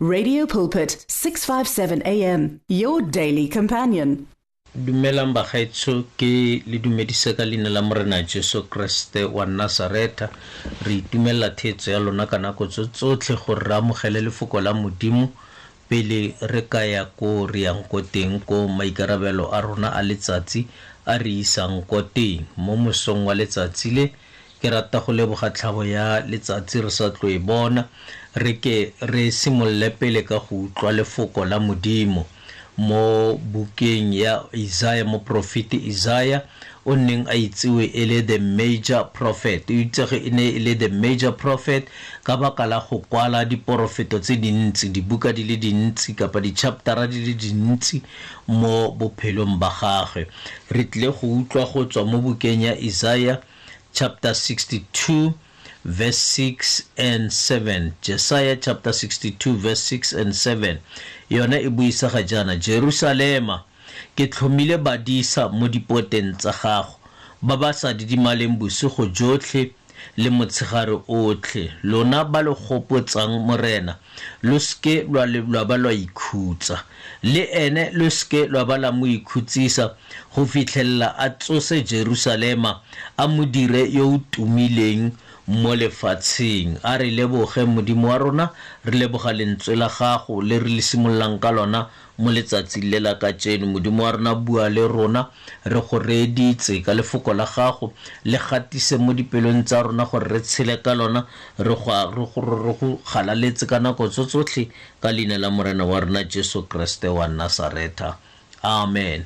Radio Pulpit 657 AM, your daily companion. Dumelang bagaetsho, ke le dumedise ka leina la Morena Jesu Kriste wa Nasaretha. Re itumelela theetso ya lona ka nako tso tsotlhe gore re amogele lefoko la Modimo pele re ka ya ko re yang ko teng, ko maikarabelo a rona a letsatsi a re isang ko teng. Mo mosong wa letsatsi le, ke rata go leboga tlhabo ya letsatsi re sa tlo e bona. Re ke re simolole pele ka go utlwa lefoko la Modimo mo bukeng ya Isaiah. Moprofeti Isaiah o neng a itsewe e le the major prophet, o itsege e ne e le the major prophet ka baka la go kwala diporofeto tse dintsi, dibuka di le dintsi kapa di-chaptera di le dintsi mo bophelong ba gagwe. Re tlile go utlwa go tswa mo bukeng ya Isaiah chapter 62 verse 6 and 7. Jesaja chapter 62 verse 6 and 7 yone e buisa ga jaana: Jerusalema, ke tlhomile badisa mo dipoteng tsa gago, ba ba sa didimaleng bosigo jotlhe le motshegare otlhe. Lona ba le gopotsang Morena, lo seke lwa ba lwa ikhutsa, le ene lo seke lwa ba la mo ikhutsisa go fitlhelela a tsose Jerusalema, a mo dire yo o tumileng mo lefatsheng. A re leboge Modimo wa rona, re leboga lentswe la gago le re le simololang ka lona mo letsatsing le la kajeno. Modimo wa rona, bua le rona, re go reeditse ka lefoko la gago, le gatise mo dipelong tsa rona gore re tshele ka lona, re go galaletse ka nako tso tsotlhe, ka leina la Morena wa rona Jesu Kriste wa Nasaretha, amen.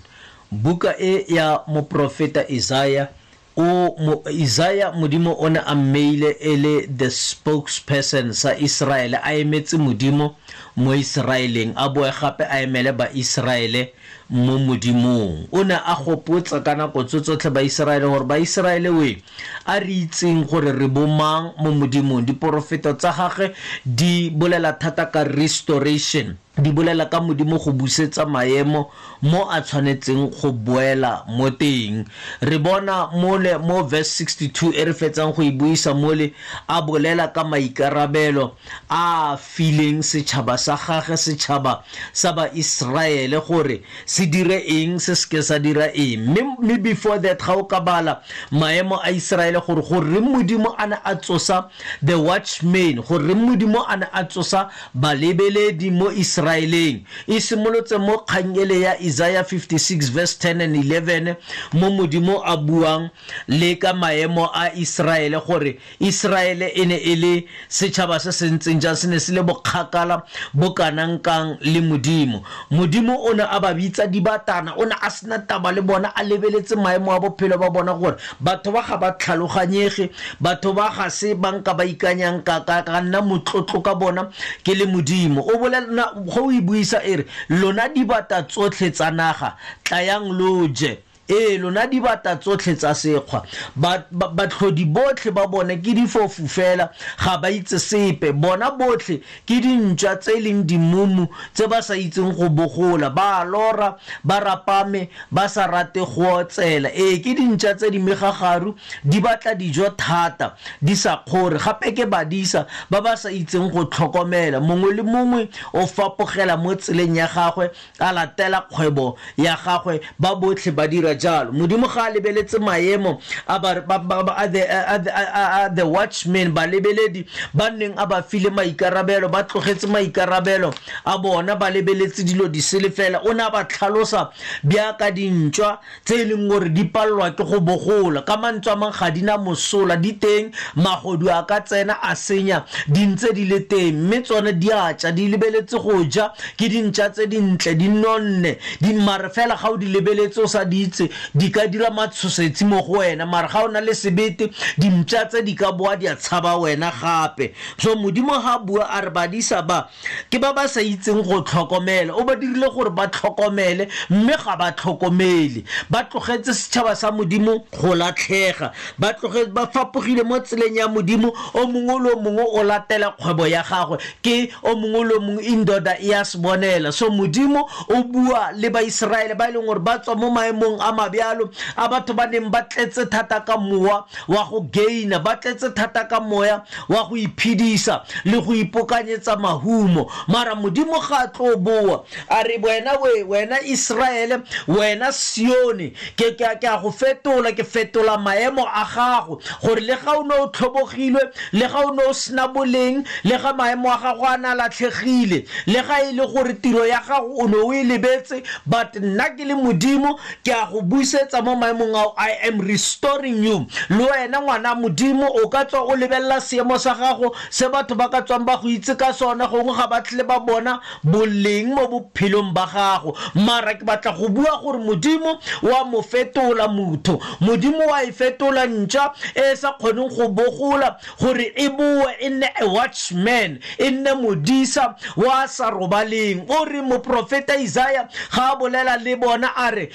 Buka e ya moprofeta Isaiah, o mo Isaiah, Modimo o ne a mmeile e le the spokesperson sa Israele, a emetse Modimo mo Israeleng, a boe gape a emele ba Israele mo Modimong. O ne a gopotsa ka nako tso tsotlhe ba Israele gore ba Israele we, a re itseng gore re bomang mo Modimong. Diporofeto tsa gagwe di bolela thata ka restoration, di bolela ka Modimo go busetsa maemo mo a tshwanetseng go boela mo teng. Re bona mole mo verse 62 e re fetsang go e buisa mole, a bolela ka maikarabelo a fileng setšhaba sa gagwe, setšhaba sa ba Israele, gore se dire eng, se seke sa dira eng. Mme before that, ga o ka bala maemo a Israele gore goreng Modimo a ne a tsosa the watchmen, goreng Modimo a ne a tsosa balebeledi mo Israeleng, e simolotse mo kgang ele ya Isaiah 56 verse 10 and 11, mo Modimo a buang le ka maemo a Israele, gore Israele e ne e le setšhaba se se ntseng jang, se ne se le bokgakala bo kanang kang le Modimo. Modimo o ne a ba bitsa dibatana, o ne a sena taba le bona, a lebeletse maemo a bophelo ba bona gore batho ba ga ba tlhaloganyege, batho ba ga se ba nka ba ikanyang ka nna motlotlo ka bona ke le Modimo. O bolela go o e buisa e re, lona dibata tsotlhe tsa naga, tlayang lo je. Ee, lona dibata tsotlhe tsa sekgwa, batlhodi botlhe ba bone ke difofu fela, ga ba itse sepe. Bona botlhe ke dintšwa tse e leng dimumu tse ba sa itseng go bogola, ba lora, ba rapame, ba sa rate go otsela. Ee, ke dintšwa tse di megagaru, di batla dijo thata, di sa kgore. Gape ke badisa ba ba sa itseng go tlhokomela. Mongwe le mongwe o fapogela mo tseleng ya gagwe, a latela kgwebo ya gagwe, ba botlhe ba dira jalo. Modimo ga a lebeletse maemo a the watchmen, balebeledi ba nneng a ba file maikarabelo, ba tlogetse maikarabelo a bona, ba lebeletse dilo di sele fela. O ne a ba tlhalosa bjaka dintšwa tse e leng gore di palelwa ke go bogola, ka mantswe a mang ga di na mosola, di teng, magodu a ka tsena a senya, di ntse di le teng, mme tsone di a tša, di lebeletse go ja, ke dintša tse dintle, di nonne, di mare fela ga o di lebeletse o sa di itse, di ka dira matshosetsi mo go wena, mare ga o na le sebete, dimpša tse di ka boa di a tshaba wena gape. So Modimo ga bua a re badisa ba ke ba ba sa itseng go tlhokomela, o ba dirile gore ba tlhokomele, mme ga ba tlhokomele, ba tlogetse setšhaba sa Modimo go latlhega, ba tlogetse, ba fapogile mo tseleng ya Modimo. O mongwe le o mongwe o latela kgwebo ya gagwe, ke o mongwe le o mongwe indoda e a se bonela. So Modimo o bua le Baiseraele ba e leng gore ba tswa mo maemong a a mabjalo a batho ba neng ba tletse thata ka mowa wa go gaina, ba tletse thata ka moya wa go iphedisa le go ipokanyetsa mahumo. Mara Modimo ga a tlo boa a re wena we, wena Israele, wena Sione, ke a go fetola, ke fetola maemo a gago, gore le ga o ne o tlhobogilwe, le ga o ne o sena boleng, le ga maemo a gago a na latlhegile, le ga e le gore tiro ya gago o ne o e lebetse, but nna ke le Modimo ke a go busetsa mo maemong ao. I am restoring you. Le wena ngwana Modimo o ka tswa o lebelela seemo sa gago se batho ba ka tswang ba go itse ka sona, gongwe ga ba tle ba bona boleng mo bophelong ba gago, mara ke batla go bua gore Modimo wa mo fetola motho, Modimo wa e fetola ntša e sa kgoneng go bogola gore e boe e nne a watchman, e nne modisa wa sa robaleng. O re moprofeta Isaiah ga a bolela le bona a re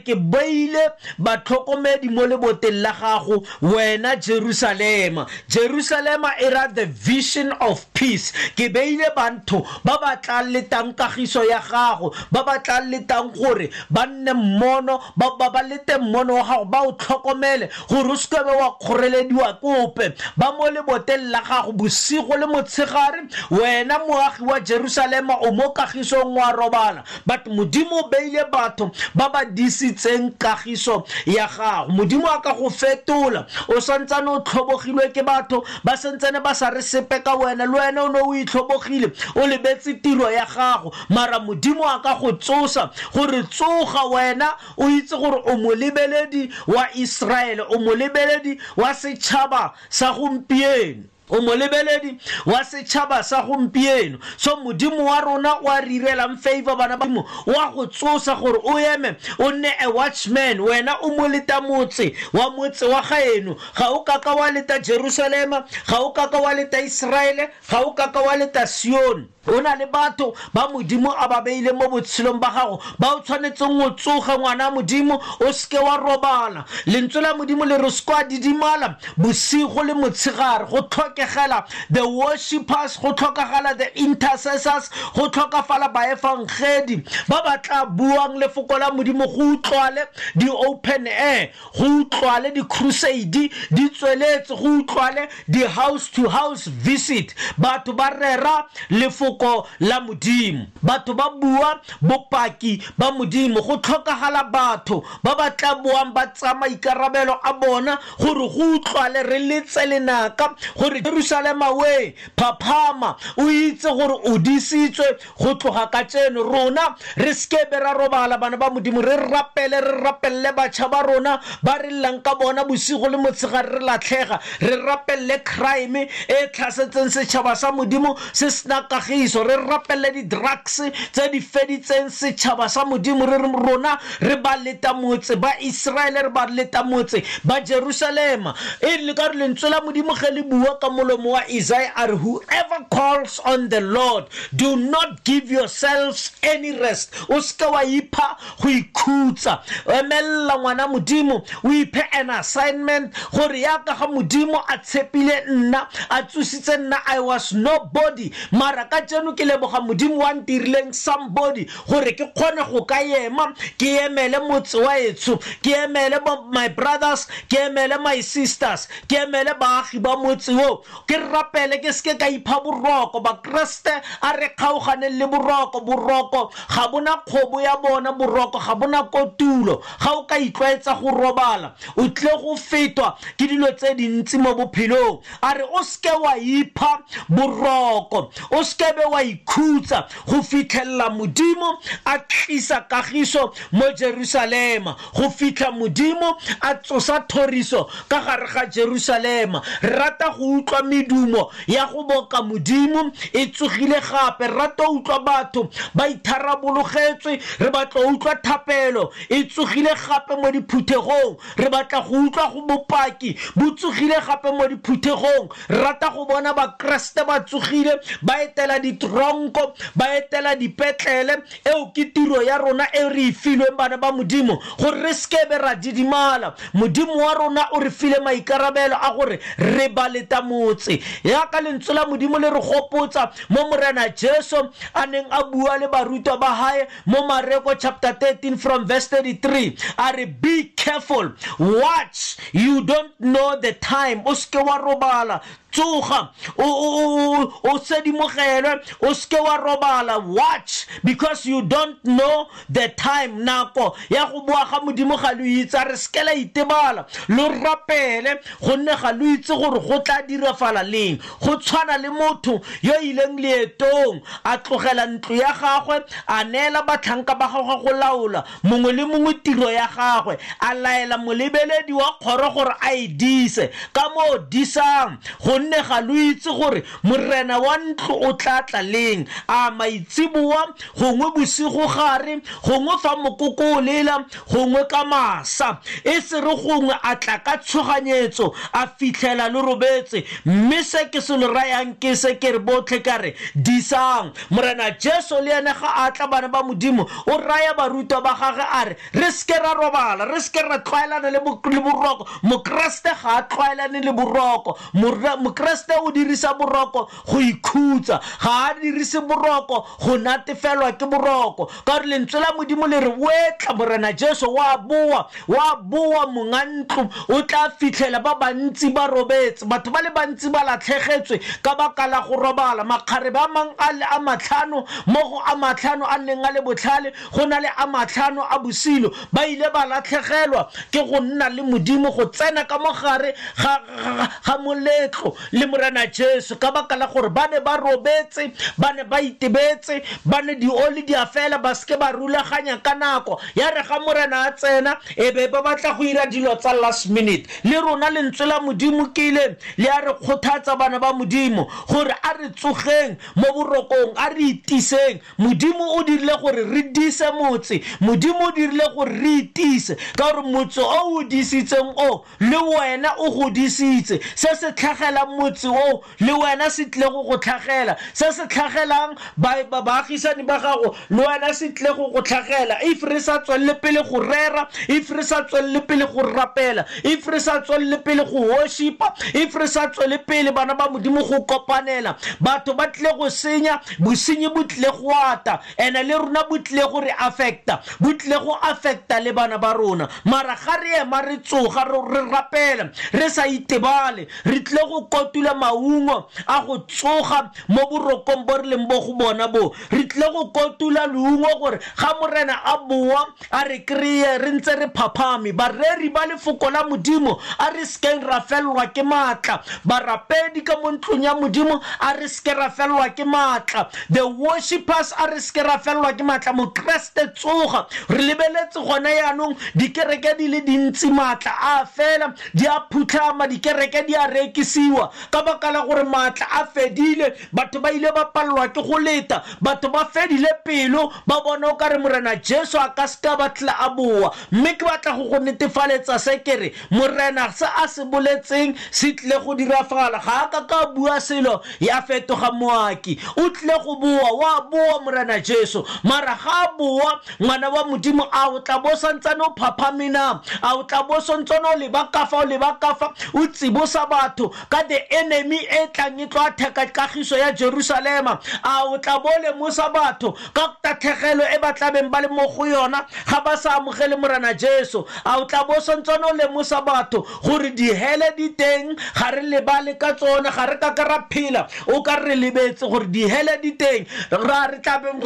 ke beile batlhokomedi mo leboteng la gago wena Jerusalema. Jerusalema e ra the vision of peace. Ke beile batho ba ba tla letang kagiso ya gago, ba ba tla letang gore ba nne mmono, ba lete mmono wa gago, ba o tlhokomele gore o seke wa kgorelediwa kope. Ba mo leboteng la gago bosigo le motshegare, wena moagi wa Jerusalema o mo kagisong wa robala, but Modimo o beile batho ba ba disitseng kagiso ya gago. Modimo a ka go fetola, o santsane o tlhobogilwe ke batho ba santsane ba sa re sepe ka wena, le wena o ne o itlhobogile, o lebetse tiro ya gago, mara Modimo a ka go tsosa gore tsoga wena o itse gore o molebeledi wa Israele, o molebeledi wa setšhaba sa gompieno, o molebeledi wa setšhaba sa gompieno. So Modimo wa rona wa re irelang favor, bana ba Modimo, wa go tsosa gore o eme o nne a watchman. Wena o moleta motse wa motse wa gaeno, ga o kaka wa leta Jerusalema, ga o kaka wa leta Israele, ga o kaka wa leta Sione. O na le batho ba Modimo a ba beile mo botshelong ba gago ba o tshwanetseng o tsoga, ngwana Modimo, o seke wa robala. Lentswe la Modimo le re se kwa didimala bosigo le motshegare. Go tlhokegela the worshipers, go tlhokagala the intercessors, go tlhokafala baefangedi ba ba tla buang lefoko la Modimo, go utlwale di open air, go utlwale di crusade di tsweletse, go utlwale di house to house visit. Batho ba rera lefoko la Modimo, batho ba bua bopaki ba Modimo. Go tlhokagala batho ba ba tla boang ba tsaya maikarabelo a bona gore go utlwale re letse lenaka gore Jerusalema we phaphama, o itse gore o disitswe go tloga ka tseno. Rona re seke ra robala, bana ba Modimo, re rapele, re rapelle batjha ba rona ba re llang ka bona bosigo le motshegare re latlhega, re rapelle crime e tlhasetseng setšhaba sa Modimo se sena kagiso, re rapelle di-drugs tse di feditseng setšhaba sa Modimo. Re rona re ba leta motse ba Israele, re ba leta motse ba Jerusalema. E le ka re lentswe la Modimo ge le bua ka molomo wa Isaiah a re, whoever calls on the Lord, do not give yourselves any rest. O seke wa ipha go ikhutsa, emella ngwana Modimo, o iphe an assignment gore yaka ga Modimo a tshepile nna, a tsositse nna, I was nobody, mara ka tseno ke leboga Modimo wa ntirileng somebody gore ke kgone go ka ema, ke emele motse wa etsho, ke emele my brothers, ke emele my sisters, ke emele baagi ba motse o, ke rapele, ke seke ka ipha boroko. Bakreste a re kgaoganeng le boroko. Boroko ga bona kgobo ya bona, boroko ga bona kotulo. Ga o ka itlwaetsa go robala, o tle go fetwa ke dilo tse dintsi mo bophelong. A re o seke wa ipha boroko, o seke be wa ikhutsa go fitlhelela Modimo a tlisa kagiso mo Jerusalema, go fitlha Modimo a tsosa thoriso ka gare ga Jerusalema. Re rata go utlwa medumo ya go boka Modimo e tsogile gape, re rata go utlwa batho ba itharabologetswe, re batla go utlwa thapelo e tsogile gape mo diphuthegong, re batla go utlwa go bopaki bo tsogile gape mo diphuthegong. Re rata go bona Bakreste ba tsogile ba etela di ditronko, ba etela dipetlele. Eo ke tiro ya rona e re e filweng bana ba Modimo, gore re sekebe ra didimala. Modimo wa rona o re file maikarabelo a gore re ba leta motse. Yaka lentswe la Modimo le re gopotsa mo Morena Jesu a neng a bua le barutwa ba hae mo Mareko chapter 13 from verse 33, a re be careful, watch, you don't know the time. O seke wa robala, tsoga, o sedimogelwe, o seke wa robala, watch because you don't know the time. Nako ya go boa ga Modimo ga lo itse, a re seke la itebala, lo rapele gonne ga lo itse gore go tla dirafala leng. Go tshwana le motho yo ileng leetong, a tlogela ntlo ya gagwe, a neela batlhanka ba gagwe go laola mongwe le mongwe tiro ya gagwe, a laela molebeledi wa kgoro gore a e dise. Ka moo disang, gonne ga lo itse gore morena wa ntlo o tla tla leng, a maitsiboa, gongwe bosigo gare, gongwe fa mokoko o lela, gongwe ka masa. E se re gongwe a tla ka tshoganyetso, a fitlhela lo robetse. Mme se ke se lo rayang ke se ke re botlhe ka re disang. Morena Jesu le ene ga a tla, bana ba Modimo, o raya barutwa ba gagwe a re re seke ra robala, re seke ra tlwaelana le boroko. Mokreste ga a tlwaelane le boroko. Mokreste o dirisa boroko go ikhutsa, ga a dirise boroko go natefelwa ke boroko. Ka gore lentswe la Modimo le re wetla Morena Jesu wa boa, wa boa monga ntlo, o tla fitlhela ba bantsi ba robetse. Batho ba le bantsi ba latlhegetswe ka baka la go robala. Makgarebe a mang a le a matlhano, mo go a matlhano a neng a le botlhale, go na le a matlhano a bosilo, ba ile ba latlhegelwa ke go nna le Modimo, go tsena ka mogare ga moletlo le Morena Jesu, ka baka la gore ba ne ba robetse, ba ne ba itebetse, ba ne dioli di a fela, ba seke ba rulaganya ka nako. Ya re ga Morena a tsena, e be ba batla go ira dilo tsa last minute. Le rona lentswe la Modimo ke ile le a re kgothatsa bana ba Modimo gore a re tsogeng mo borokong, a re itiseng. Modimo o dirile gore re dise motse, Modimo o dirile gore re itise, ka gore motse o o disitseng o le wena o go disitse. Se se tlhagelang motse o le wena se tle go go tlhagela, se se tlhagelang baagisani ba gago le wena se tle go go tlhagela. If re sa tswelele pele go rera, if re sa tswelele pele go rapela, if re sa tswelele pele go worshipa, if re sa tswelele pele bana ba Modimo go kopanela, batho ba tle go senya, bosenyi bo tle go ata, ene le rona bo tle go re affecta, bo tle go affecta le bana ba rona. Mara ga re ema re tsoga, re rapela, re sa itebale, re tle go kotula maungo a go tsoga mo borokong bo re leng bo go bona bo. Re tle go kotula leungo gore ga Morena a boa a re kry-e re ntse re phaphame. Bareri ba lefoko la Modimo, a re sekeng ra fellwa ke maatla. Barapedi ka mo ntlong ya Modimo, a re seke ra fellwa ke maatla. The worshippers, a re seke ra fellwa ke maatla. Mokreste tsoga, re lebeletse gona yaanong dikereke di le dintsi maatla a fela, di a phutlhama, dikereke di a rekisiwa ka baka la gore maatla a fedile. Batho ba ile ba pallwa ke go leta, batho ba fedile pelo, ba bona o kare Morena Jesu a ka seka ba tla a boa. Mme ke batla go go netefaletsa se ke re Morena se a se boletseng se tle go dirafala. Ga a ka ka bua selo ya fetoga moaki, o tle go boa, wa boa Morena Jesu. Mara ga a boa, ngwana wa Modimo, a o tla bo santsane o phaphame na? A o tla bo santsane o leba ka fa, o leba ka fa, o tsibosa batho ka the enemy e tlang e tlo atheka kagiso ya Jerusalema? A o tla bo lemosa batho ka tatlhegelo e ba tlabeng ba le mo go yona ga ba sa amogele Morena Jesu? A o tla bo santsane o lemosa batho gore dihele di teng, ga re lebale ka tsone, ga re ka ka ra phela o ka re lebetse gore dihele di teng. Re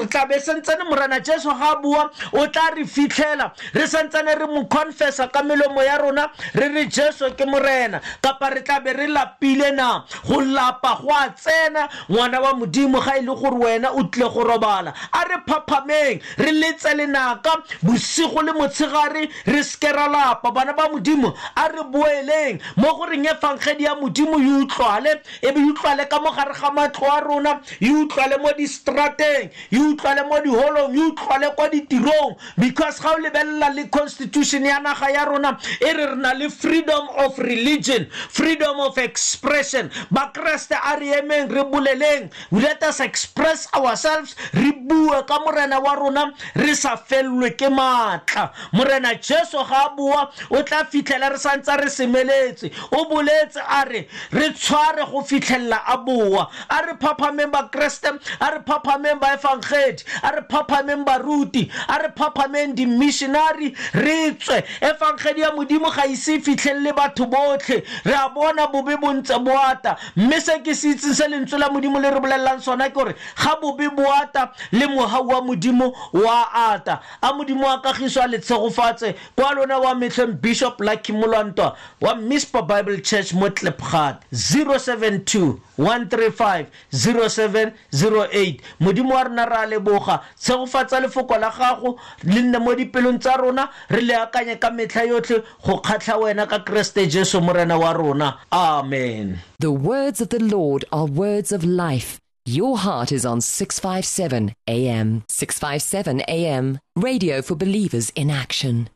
tlabe santsane Morena Jesu ga a bua, o tla re fitlhela re santsane re mo confessa ka melomo ya rona, re re Jesu ke Morena, kapa re tlabe re lapile na? Go lapa go a tsena, ngwana wa Modimo, ga e le gore wena o tle go robala. robala. A re phaphameng, re letse lenaka bosigo le motshegare, re seke ra lapa. Bana ba Modimo, a re boeleng mo go reng efangedi ya Modimo e utlwale, e be e utlwale ka mo gare ga matlo a rona, e utlwale mo distrateng, e utlwale mo diholong, e utlwale kwa ditirong. Because ga o lebelela le constitution ya naga ya rona, e re re na le freedom of religion, freedom of expression. Bakreste, a re emeng re boleleng, let us express ourselves, re bue ka Morena wa rona re sa fellwe ke maatla. Morena Jesu ga a boa o tla fitlhela re santse re semeletse. O boletse a re re tshware go fitlhelela a boa. A re phaphameng Bakreste, a re phaphameng baefangedi, a re phaphameng baruti, a re phaphameng di-missionary, re tswe. Efangedi ya Modimo ga ise e fitlhelele batho botlhe. Re a bona bobe bo ntse bo ata, mme se ke se itseng se lentswe la Modimo le re bolelelang sona ke gore ga bobe bo ata le mohau wa Modimo wa ata. A Modimo wa kagiso a le tshegofatse. Kwa lona wa metlheng, Bishop Lucky Molwantwa wa Mispa Bible Church mo Klipgat, 072 135 0708. Modimo wa rona, re a leboga. Tshegofatsa lefoko la gago, le nne mo dipelong tsa rona, re le akanye ka metlha yotlhe go kgatlha wena ka Kreste Jesu Morena wa rona. Amen. The words of the Lord are words of life. Your heart is on 657 AM. 657 AM. Radio for believers in action.